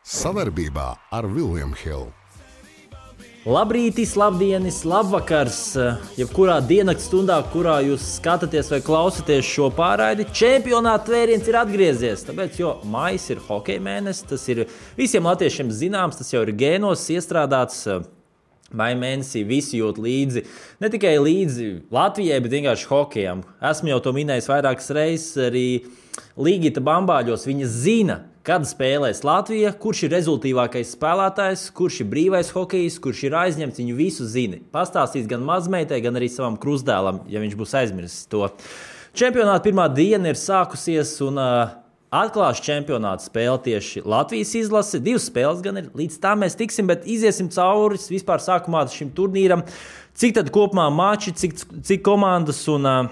Savarbībā ar William Hill. Labrītis, labdienis, labvakars, jebkurā diennakts stundā, kurā jūs skatāties vai klausāties šo pārraidi, čempionāta tvēriens ir atgriezies. Tāpēc, jo maijs ir hokeja mēnesis, tas ir visiem latviešiem zināms, tas jau ir gēnos iestrādāts. Maija mēnesī visi jūt līdzi, ne tikai līdzi Latvijai, bet vienkārši hokejam. Esmu jau to minējis vairākas reizes, arī Līgita Bambāļos viņa zina, kad spēlēs Latvija, kurš ir rezultīvākais spēlētājs, kurš ir brīvais hokejs, kurš ir aizņemts, viņu visu zina. Pastāstīs gan mazmeitai, gan arī savam krustdēlam, ja viņš būs aizmirsis to. Čempionāta pirmā diena ir sākusies un atklās čempionāta spēle tieši Latvijas izlase. 2 spēles gan ir, līdz tam mēs tiksim, bet iziesim cauri vispār sākumā šim turnīram. Cik tad kopumā mači, cik komandas un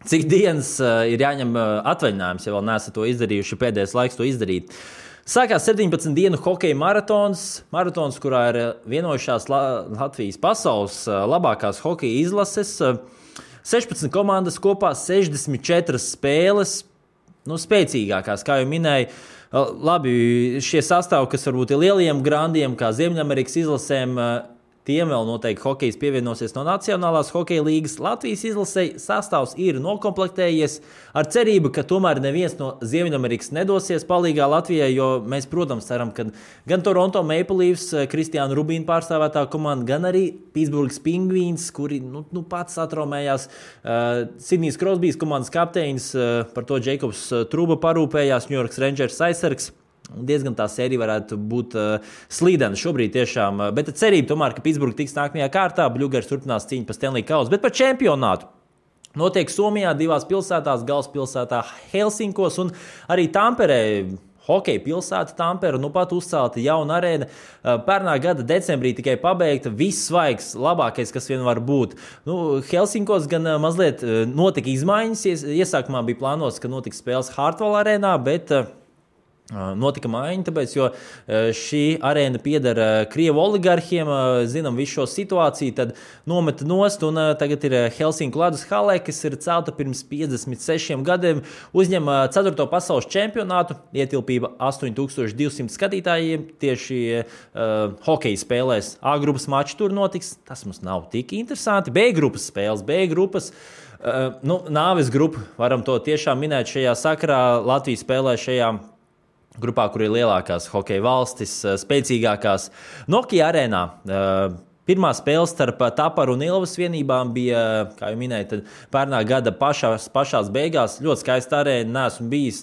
cik dienas ir jāņem atvaļinājums, ja vēl neesat to izdarījuši, pēdējais laiks to izdarīt. Sākās 17 dienu hokeja maratons, kurā ir vienojušās Latvijas pasaules labākās hokeja izlases. 16 komandas kopā, 64 spēles. Spēcīgākās, kā jau minēju, labi, šie sastāvi, kas varbūt ir lieliem grandiem, kā Ziemeļamerikas izlasēm, tiem vēl noteikti hokejs pievienosies no Nacionālās hokeja līgas. Latvijas izlasei sastāvs ir nokomplektējies ar cerību, ka tomēr neviens no Ziemeļamerikas nedosies palīgā Latvijai, jo mēs, protams, ceram, ka gan Toronto Maple Leafs, Kristiāna Rubīna pārstāvētā komanda, gan arī Pittsburghs Penguins, kuri pats atraumējās, Sidnijs Krosbijs komandas kapteinis, par to Džeikobs Truba parūpējās, New York Rangers aizsargs. Diezgan tā sērija varētu būt slīdena šobrīd tiešām, bet cerība tomēr, ka Pittsburgh tiks nākamajā kārtā, Bluegers turpinās cīņu par Stanley Kausu, bet par čempionātu. Notiek Somijā 2 pilsētās, galvaspilsētā Helsinkos un arī Tamperē. Hokeja pilsēta Tampere, pat uzcelta jauna arēna. Pērnā gada decembrī tikai pabeigta, viss svaigs, labākais, kas vien var būt. Helsinkos gan mazliet notika izmaiņas. Iesākumā bija plānots, ka notiks spēles Hartwall arēnā, bet notika maiņa, tāpēc, jo šī arēna pieder Krievu oligarhiem, zinām visu šo situāciju, tad nometa nost un tagad ir Helsinku ledus halē, kas ir celta pirms 56 gadiem, uzņem 4. pasaules čempionātu, ietilpība 8200 skatītājiem, tieši hokeja spēlēs. A grupas mači tur notiks, tas mums nav tik interesanti, B grupas spēles, B grupas. Nāves grupa, varam to tiešām minēt šajā sakarā, Latvija spēlē šajā grupā, kur ir lielākās hokeja valstis, spēcīgākās. Nokia arēnā pirmā spēle starp Taparu un Ilvas vienībām bija, kā jau minēju, tad pērnā gada pašās beigās. Ļoti skaista arēna, neesmu bijis,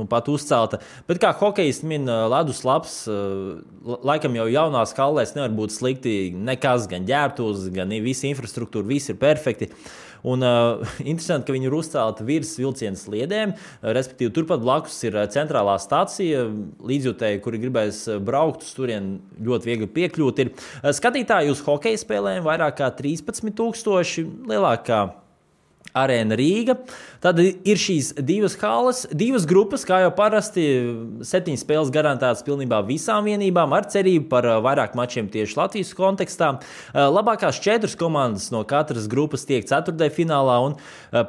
pat uzcelta. Bet kā hokejs min ledus labs, laikam jau jaunās hallēs nevar būt slikti nekas, gan ģērbtuvs, gan visa infrastruktūra, viss ir perfekti. Un interesanti, ka viņi ir uzcelti virs vilciena sliedēm, respektīvi turpat blakus ir centrālā stacija, līdzjūtēji, kuri gribēs braukt uz turien, ļoti viegli piekļūt. Ir skatītāji uz hokeja spēlēm vairāk kā 13,000, lielākā arēna Rīga. Tad ir šīs 2 halles, 2 grupas, kā jau parasti, 7 spēles garantētas pilnībā visām vienībām, ar cerību par vairāk mačiem tieši Latvijas kontekstā. Labākās 4 komandas no katras grupas tiek 4. finālā, un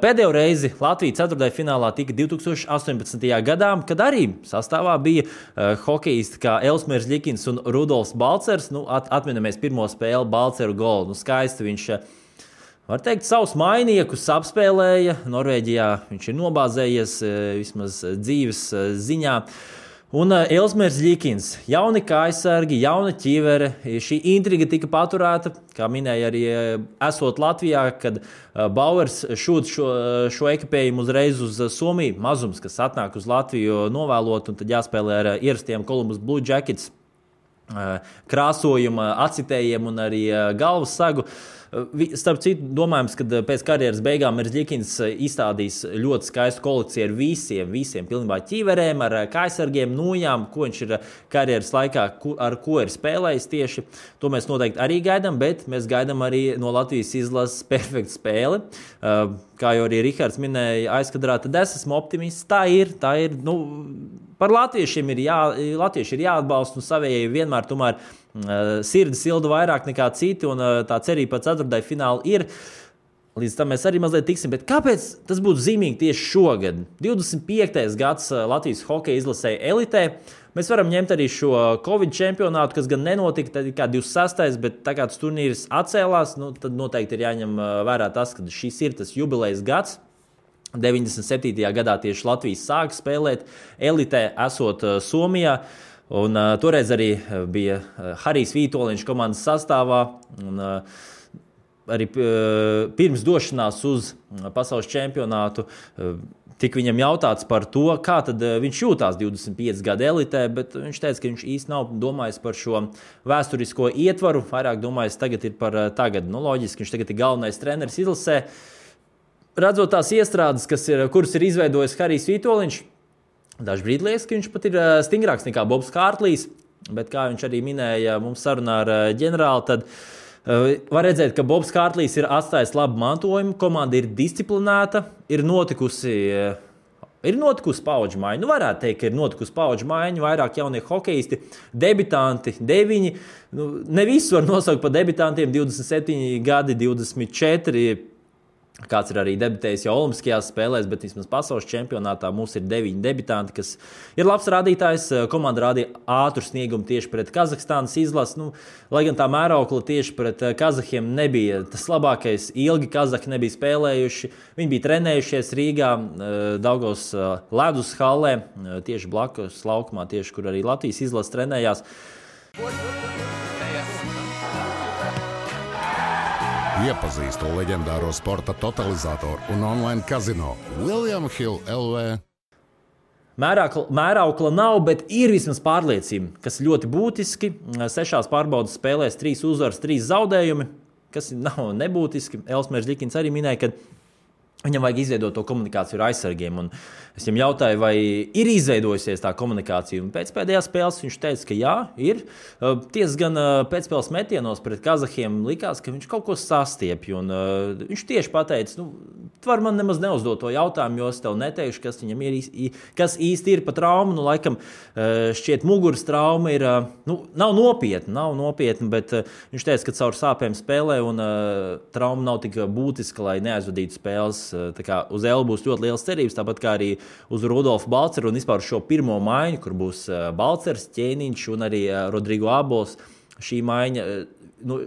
pēdējo reizi Latvija 4. finālā tika 2018. gadā, kad arī sastāvā bija hokejisti kā Elsmērs Ļikins un Rudolfs Balcers. Atminamies pirmo spēli Balceru golu. Skaisti viņš, var teikt, savus mainiekus apspēlēja. Norvēģijā viņš ir nobāzējies vismaz dzīves ziņā. Un Elsmērs Ļikins, jauni kājsargi, jauna ķivere. Šī intriga tika paturēta, kā minēja arī esot Latvijā, kad Bauers šūt šo ekipējumu uzreiz uz Somiju. Mazums, kas atnāk uz Latviju novēlot, un tad jāspēlē ar ierastiem Columbus Blue Jackets krāsojuma, acitējiem un arī galvas sagu. Starp citu, domājams, ka pēc karjeras beigām Ļikins izstādīs ļoti skaistu kolekciju ar visiem pilnībā ķīverēm, ar kājsargiem, nūjām, ko viņš ir karjeras laikā, ar ko ir spēlējis tieši. To mēs noteikti arī gaidām, bet mēs gaidām arī no Latvijas izlases perfektu spēli. Kā jau arī Rihards minēja aizkadrā, tad es esmu optimists. Tā ir. Par latviešiem latvieši ir jāatbalsta un savējai vienmēr tomēr sirdi silda vairāk nekā citi, un tā cerība par 4. finālu ir. Līdz tam mēs arī mazliet tiksim, bet kāpēc tas būtu zīmīgi tieši šogad? 25. gads Latvijas hokeja izlasēja elitē. Mēs varam ņemt arī šo Covid čempionātu, kas gan nenotika, tad kā 26. bet tā kā tas turnīrs atcēlās, tad noteikti ir jāņem vērā tas, ka šis ir tas jubilejas gads. 97. gadā tieši Latvijas sāka spēlēt elitē, esot Somijā. Un toreiz arī bija Harijs Vītoliņš komandas sastāvā. Un, arī pirms došanās uz pasaules čempionātu tika viņam jautāts par to, kā tad viņš jūtās 25 gadu elitē, bet viņš teica, ka viņš īsti nav domājis par šo vēsturisko ietvaru, vairāk domājis tagad ir par tagad. Loģiski, viņš tagad ir galvenais treneris izlasē. Redzot tās iestrādes, kuras ir izveidojis Harijs Vītoliņš, dažbrīd liekas, ka viņš pat ir stingrāks nekā Bobs Kārtlīs, bet kā viņš arī minēja mums sarunā ar ģenerāli, tad var redzēt, ka Bobs Kārtlīs ir atstājis labu mantojumu, komanda ir disciplinēta, ir notikusi paudžu maiņa. Varētu teikt, ka ir notikusi paudžu maiņa, vairāk jaunie hokeisti, debitanti, 9. Ne visus var nosaukt par debitantiem, 27 gadi, 24. Kāds ir arī debitējis jau Olimpiskajās spēlēs, bet vismaz pasaules čempionātā mums ir 9 debitanti, kas ir labs rādītājs. Komanda rādīja ātru sniegumu tieši pret Kazahstānas izlasi. Lai gan tā mēraukla tieši pret kazahiem nebija tas labākais, ilgi kazahi nebija spēlējuši. Viņi bija trenējušies Rīgā, Daugavas ledus hallē, tieši blakus laukumā, tieši kur arī Latvijas izlase trenējās. Iepazīstu leģendāro sporta totalizatoru un online kazino William Hill LV. Mēraukla nav, bet ir vismaz pārliecība, kas ļoti būtiski. 6 pārbaudas spēlēs 3 uzvaras, 3 zaudējumi, kas nav nebūtiski. Elsmērs Ļikins arī minēja, ka viņam vajag izveidot to komunikāciju ar aizsargiem. Un es viņam jautāju, vai ir izveidojusies tā komunikācija. Un pēc pēdējās spēles viņš teica, ka jā, ir. Tiesa gan pēcspēles metienos pret kazahiem likās, ka viņš kaut ko sastiepja. Un viņš tieši pateica, tu vari man nemaz neuzdot to jautājumu, jo es tev neteikšu, kas viņam ir, kas īsti ir pa traumu. Laikam šķiet muguras trauma ir, nav nopietna, bet viņš teica, ka caur sāpēm spēlē un trauma nav tik būtiska, lai neaizvadītu spēles. Tā kā uz Elu būs ļoti liels cerības, tāpat kā arī uz Rudolfu Balceru un vispār šo pirmo maiņu, kur būs Balcers, Ķēniņš un arī Rodrigo Abols. Šī maiņa,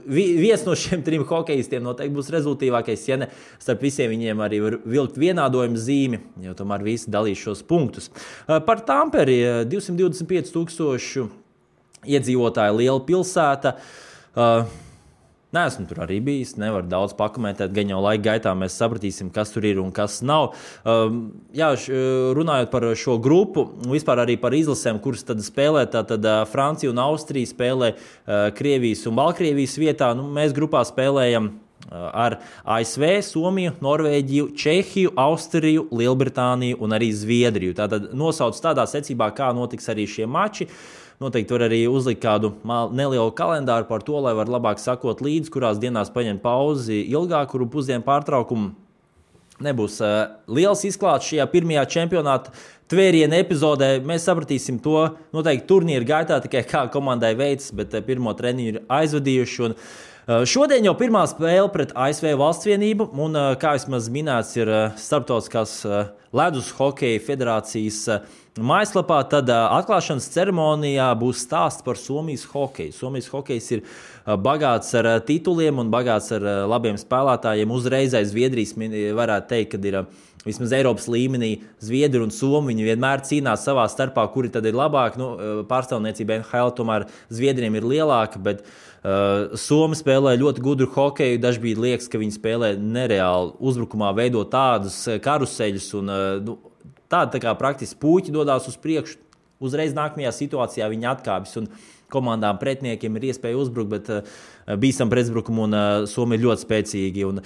viens no šiem 3 hokeistiem noteikti būs rezultīvākais, ja ne starp visiem viņiem arī var vilkt vienādojuma zīmi, jo tomēr visi dalīs šos punktus. Par Tamperi 225,000 iedzīvotāju liela pilsēta. Neesmu tur arī bijis, nevaru daudz pakomentēt, gan jau laika gaitā mēs sapratīsim, kas tur ir un kas nav. Runājot par šo grupu, vispār arī par izlasēm, kuras tad spēlē, tad Francija un Austrija spēlē Krievijas un Baltkrievijas vietā. Mēs grupā spēlējam ar ASV, Somiju, Norvēģiju, Čehiju, Austriju, Lielbritāniju un arī Zviedriju. Tātad nosauc tādā secībā, kā notiks arī šie mači. Noteikti var arī uzlikt kādu nelielu kalendāru par to, lai var labāk sakot līdzi, kurās dienās paņemt pauzi ilgāku, kuru pusdienu pārtraukumu. Nebūs liels izklāsts šajā pirmajā čempionāta tvēriena epizodē. Mēs sapratīsim to noteikti turnīra gaitā, tikai kā komandai veids, bet pirmo treniņu ir aizvadījuši. Un šodien jau pirmā spēle pret ASV Valstsvienību, un kā vismaz minēts ir Starptautiskās ledus hokeja federācijas mājaslapā, tad atklāšanas ceremonijā būs stāsts par Somijas hokeju. Somijas hokejs ir bagāts ar tituliem un bagāts ar labiem spēlētājiem. Uzreiz aiz Zviedrijas varētu teikt, ka ir vismaz Eiropas līmenī Zviedri un Somi. Viņi vienmēr cīnās savā starpā, kuri tad ir labāki. Pārstāvniecība NHL tomēr Zviedriem ir lielāka, bet Somi spēlē ļoti gudru hokeju. Dažbrīd liekas, ka viņi spēlē nereāli uzbrukumā, veido tādus karuseļus un tā kā praktiski puķi dodās uz priekšu. Uzreiz nākamajā situācijā viņi atkāpjas un komandām pretiniekiem ir iespēja uzbrukt, bet bīstam pretuzbrukumu un Somi ir ļoti spēcīgi. Un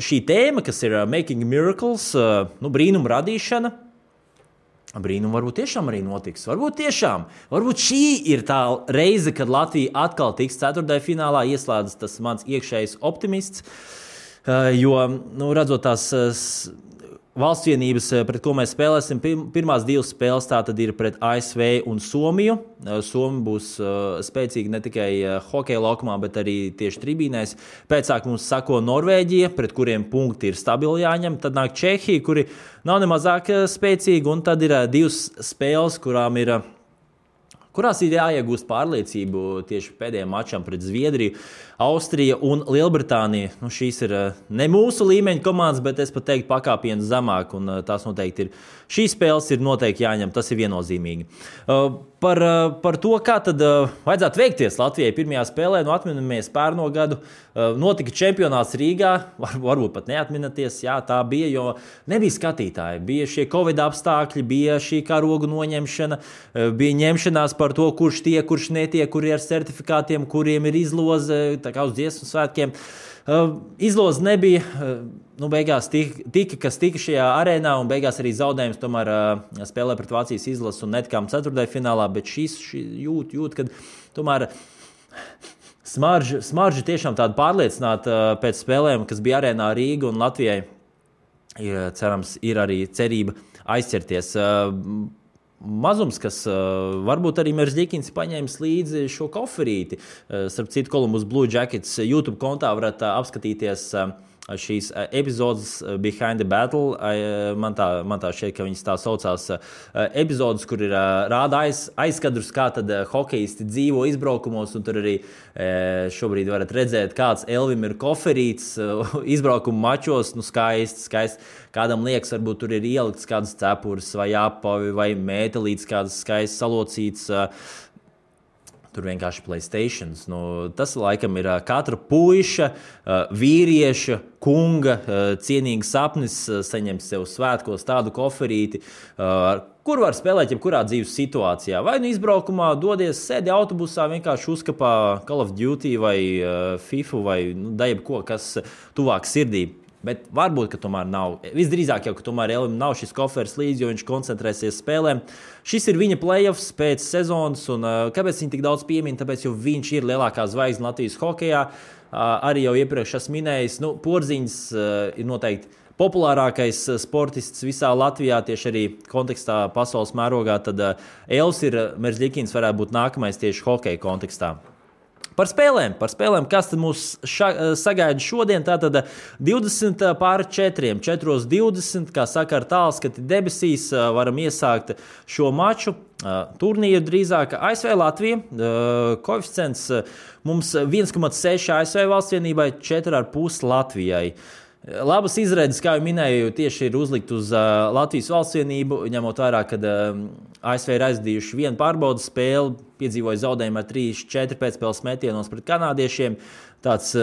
šī tēma, kas ir Making Miracles, brīnumu radīšana, brīnumu varbūt tiešām arī notiks. Varbūt šī ir tā reize, kad Latvija atkal tiks ceturtajā finālā, ieslēdzas tas mans iekšējais optimists, jo, redzot tās valstsvienības, pret ko mēs spēlēsim. Pirmās 2 spēles tātad ir pret ASV un Somiju. Somija būs spēcīga ne tikai hokeja laukumā, bet arī tieši tribīnēs. Pēcāk mums sako Norvēģija, pret kuriem punkti ir stabili jāņem. Tad nāk Čehija, kuri nav nemazāk spēcīgi. Un tad ir 2 spēles, kurās ir jāiegūst pārliecību tieši pēdējiem mačam pret Zviedriju, Austrija un Lielbritānija. Šīs ir ne mūsu līmeņa komandas, bet es pat teiktu pakāpienus zemāk, un tās noteikti ir. Šīs spēles ir noteikti jāņem, tas ir viennozīmīgi. Par to, kā tad vajadzētu veikties Latvijai pirmajā spēlē, atminamies pērno gadu, notika čempionāts Rīgā, varbūt pat neatminaties, jā, tā bija, jo nebija skatītāji, bija šie Covid apstākļi, bija šī karogu noņemšana, bija ņemšanās par to, kurš tiek, kurš netiek, kuri ar certifikātiem, kuriem ir izloze, tā kā uz dziesmu svētkiem. Izloze nebija, beigās kas tika šajā arēnā, un beigās arī zaudējums tomēr spēlē pret Vācijas izlasu un netikām ceturtdaļfinālā, bet šis jūt, kad tomēr smarža tiešām tāda pārliecināta pēc spēlēm, kas bija arēnā Rīga un Latvijai, cerams, ir arī cerība aizķerties. Mazums, kas varbūt arī Merzlikins paņēmis līdzi šo koferīti. Starp citu, Columbus Blue Jackets YouTube kontā varat apskatīties šīs epizodes Behind the Battle. Man tā šķiet, ka viņas tā saucās epizodes, kur ir rāda aizskadrus, kā tad hokejisti dzīvo izbraukumos, un tur arī šobrīd varat redzēt, kāds Elvim ir koferīts izbraukumu mačos, skaisti. Kādam liekas, varbūt tur ir ielikts kādas cepures vai apavi vai mētelītes, kādas skaisti salocīts. Tur vienkārši PlayStations. Tas laikam ir katra puiša, vīrieša, kunga cienīgs sapnis saņemt sev svētkos tādu koferīti, kur var spēlēt jebkurā dzīves situācijā. Vai izbraukumā dodies, sēdi autobusā, vienkārši uzkapā Call of Duty vai FIFA vai jebko, kas tuvāk sirdī. Bet varbūt, ka tomēr nav. Visdrīzāk jau, ka tomēr Elvim nav šis koferis līdzi, jo viņš koncentrēsies spēlēm. Šis ir viņa playoffs pēc sezonas, un kāpēc viņi tik daudz piemin? Tāpēc, jo viņš ir lielākā zvaigzne Latvijas hokejā. Arī jau iepriekš esmu minējis, Porziņš ir noteikti populārākais sportists visā Latvijā, tieši arī kontekstā pasaules mērogā. Tad Elvis Merzlikins varētu būt nākamais tieši hokeja kontekstā. Par spēlēm, kas tad mūs sagaida šodien, tātad 20:4, 4:20, kā saka ar tālskati debesīs, varam iesākt šo maču. Turnīru drīzāk ASV Latvija, koeficients mums 1,6 ASV valstsvienībai, 4,5 Latvijai. Labas izredzes, kā jau minēju, tieši ir uzlikt uz Latvijas valstsvienību, ņemot vērā, kad ASV ir aizdījuši vienu pārbaudas spēli, piedzīvoja zaudējumu ar 3-4 pēcspēles metienos pret kanādiešiem. Tāds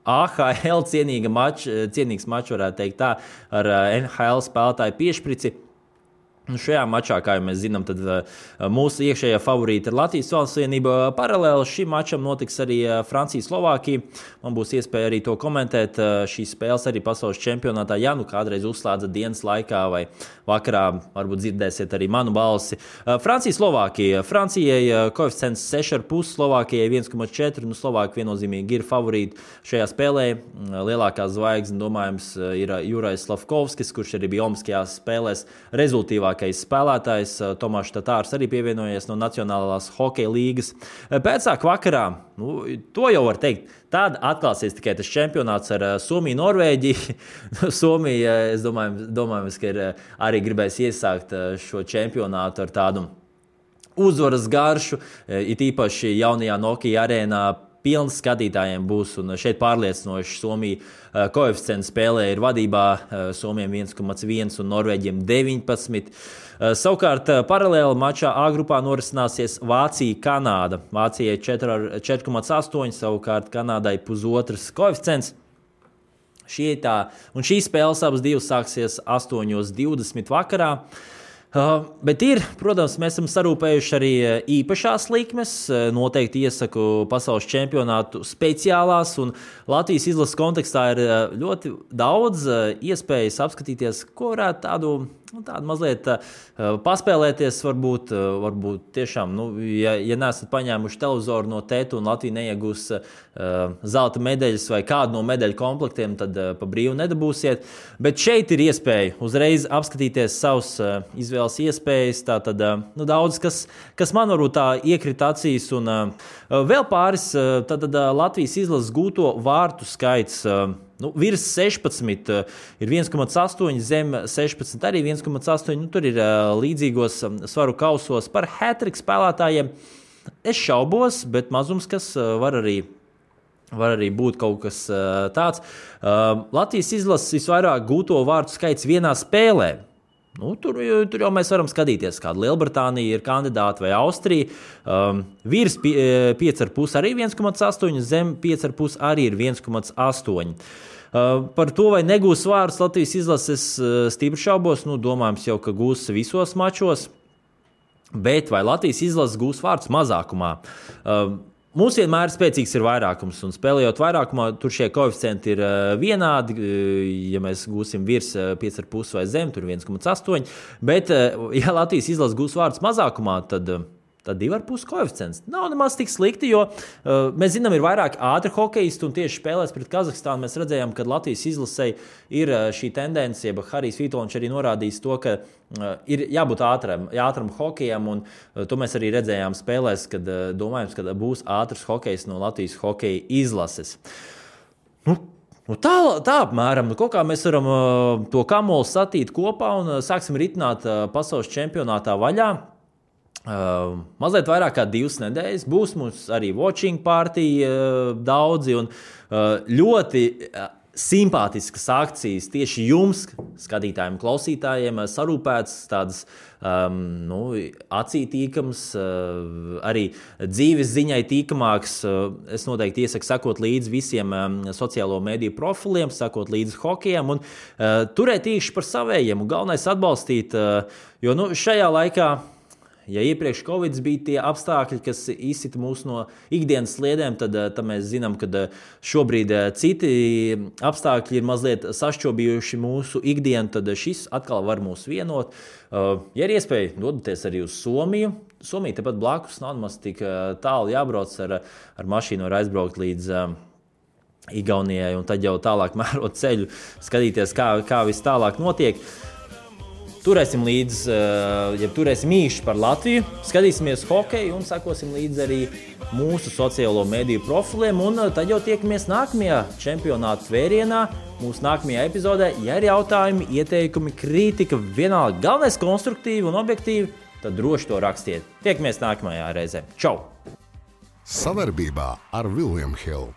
AHL cienīgs mačs, varētu teikt tā, ar NHL spēlētāju piešprici. Šajā mačā, kā jau mēs zinām, tad mūsu iekšējā favorīta ir Latvijas valstsvienība. Paralēli šim mačam notiks arī Francija-Slovākija. Man būs iespēja arī to komentēt. Šīs spēles arī pasaules čempionātā, ja kādreiz uzslēdzat dienas laikā vai vakarā, varbūt dzirdēsiet arī manu balsi. Francija-Slovākija. Francijai koeficients 6,5, Slovākijai 1,4. Slovāki viennozīmīgi ir favorīti šajā spēlē. Lielākā zvaigzne, domājams, ir Jurais Slavkovskis, kurš arī bija olimpiskajās spēlēs rezultīvākais spēlētājs. Tomašs Tatārs arī pievienojies no Nacionālās hokeja līgas. Pēcāk vakarā, to jau var teikt, tad atklāsies tikai tas čempionāts ar Somiju, Norvēģiju. Somija, es domāju, ka ir arī gribēs iesākt šo čempionātu ar tādu uzvaras garšu, it īpaši jaunajā Nokia arēnā. Pilns skatītājiem būs, un šeit pārliecinoši Somija koeficients spēlē ir vadībā, Somijam 1,1 un Norvēģiem 19. Savukārt paralēli mačā A grupā norisināsies Vācija-Kanāda. Vācijai 4,8, savukārt Kanādai 1,5 koeficients. Un šīs spēles abas divas sāksies 8:20 vakarā. Bet protams, mēs esam sarūpējuši arī īpašās likmes. Noteikti iesaku pasaules čempionātu speciālās, un Latvijas izlases kontekstā ir ļoti daudz iespējas apskatīties, ko varētu tādu tāda mazliet paspēlēties, varbūt tiešām, ja neesat paņēmuši televizoru no tēta un Latvija neiegūs zelta medaļas vai kādu no medaļu komplektiem, tad pa brīvu nedabūsiet. Bet šeit ir iespēja uzreiz apskatīties savus izvēles iespējas. Tātad daudz, kas man varbūt tā iekrita acīs. Un vēl pāris, tātad Latvijas izlases gūto vārtu skaits. Virs 16 ir 1,8, zem 16 arī 1,8. Tur ir līdzīgos svaru kausos par hat-trick spēlētājiem. Es šaubos, bet mazums, kas var arī būt kaut kas tāds. Latvijas izlases visvairāk gūto vārtu skaits vienā spēlē. Tur jau mēs varam skatīties, kāda Lielbritānija ir kandidāta vai Austrija. Virs 5,5 arī 1,8, zem 5,5 arī ir 1,8. Par to, vai negūs vārdus Latvijas izlases, stipri šaubos. Domājams jau, ka gūs visos mačos. Bet vai Latvijas izlases gūs vārdus mazākumā? Mums vienmēr spēcīgs ir vairākums, un spēlējot vairākumā, tur šie koeficienti ir vienādi. Ja mēs gūsim virs 5,5 vai zem, tur 1,8. Bet, ja Latvijas izlases gūs vārdus mazākumā, tad 2,5 koeficients. Nav nemaz tik slikti, jo mēs zinām, ir vairāk ātri hokeisti, un tieši spēlēs pret Kazahstānu mēs redzējām, ka Latvijas izlasei ir šī tendence, ja Harijs Vitoļņš arī norādījis to, ka ir jābūt ātram hokejam, un to mēs arī redzējām spēlēs, kad domājams, ka būs ātrs hokejs no Latvijas hokeja izlases. Tā apmēram, kaut kā mēs varam to kamolu satīt kopā un sāksim ritināt pasaules čempionātā vaļā. Mazliet vairāk kā 2 nedēļas. Būs mums arī watching party daudzi un ļoti simpātiskas akcijas tieši jums, skatītājiem, klausītājiem, sarūpētas, tādas acī tīkams, arī dzīves ziņai tīkamāks. Es noteikti iesaku sekot līdzi visiem sociālo mediju profiliem, sekot līdzi hokejam un turēt īkšķi par savējiem un galvenais atbalstīt, jo šajā laikā, ja iepriekš Covid bija tie apstākļi, kas izsita mūs no ikdienas sliedēm, tad mēs zinām, ka šobrīd citi apstākļi ir mazliet sašķobījuši mūsu ikdienu, tad šis atkal var mūs vienot. Ja ir iespēja, dodaties arī uz Somiju. Somija tepat blakus, nav maz tik tālu jābrauc ar mašīnu, var aizbraukt līdz Igaunijai un tad jau tālāk mērot ceļu, skatīties, kā viss tālāk notiek. Turēsim līdzi, turēsim īši par Latviju, skatīsimies hokeju un sakosim līdzi arī mūsu sociālo mediju profiliem. Un tad jau tiekamies nākamajā čempionāta tvērienā, mūsu nākamajā epizodē. Ja ir jautājumi, ieteikumi, kritika, vienalga galvenais konstruktīvi un objektīvi, tad droši to rakstiet. Tiekamies nākamajā reizē. Čau! Savarbībā ar William Hill.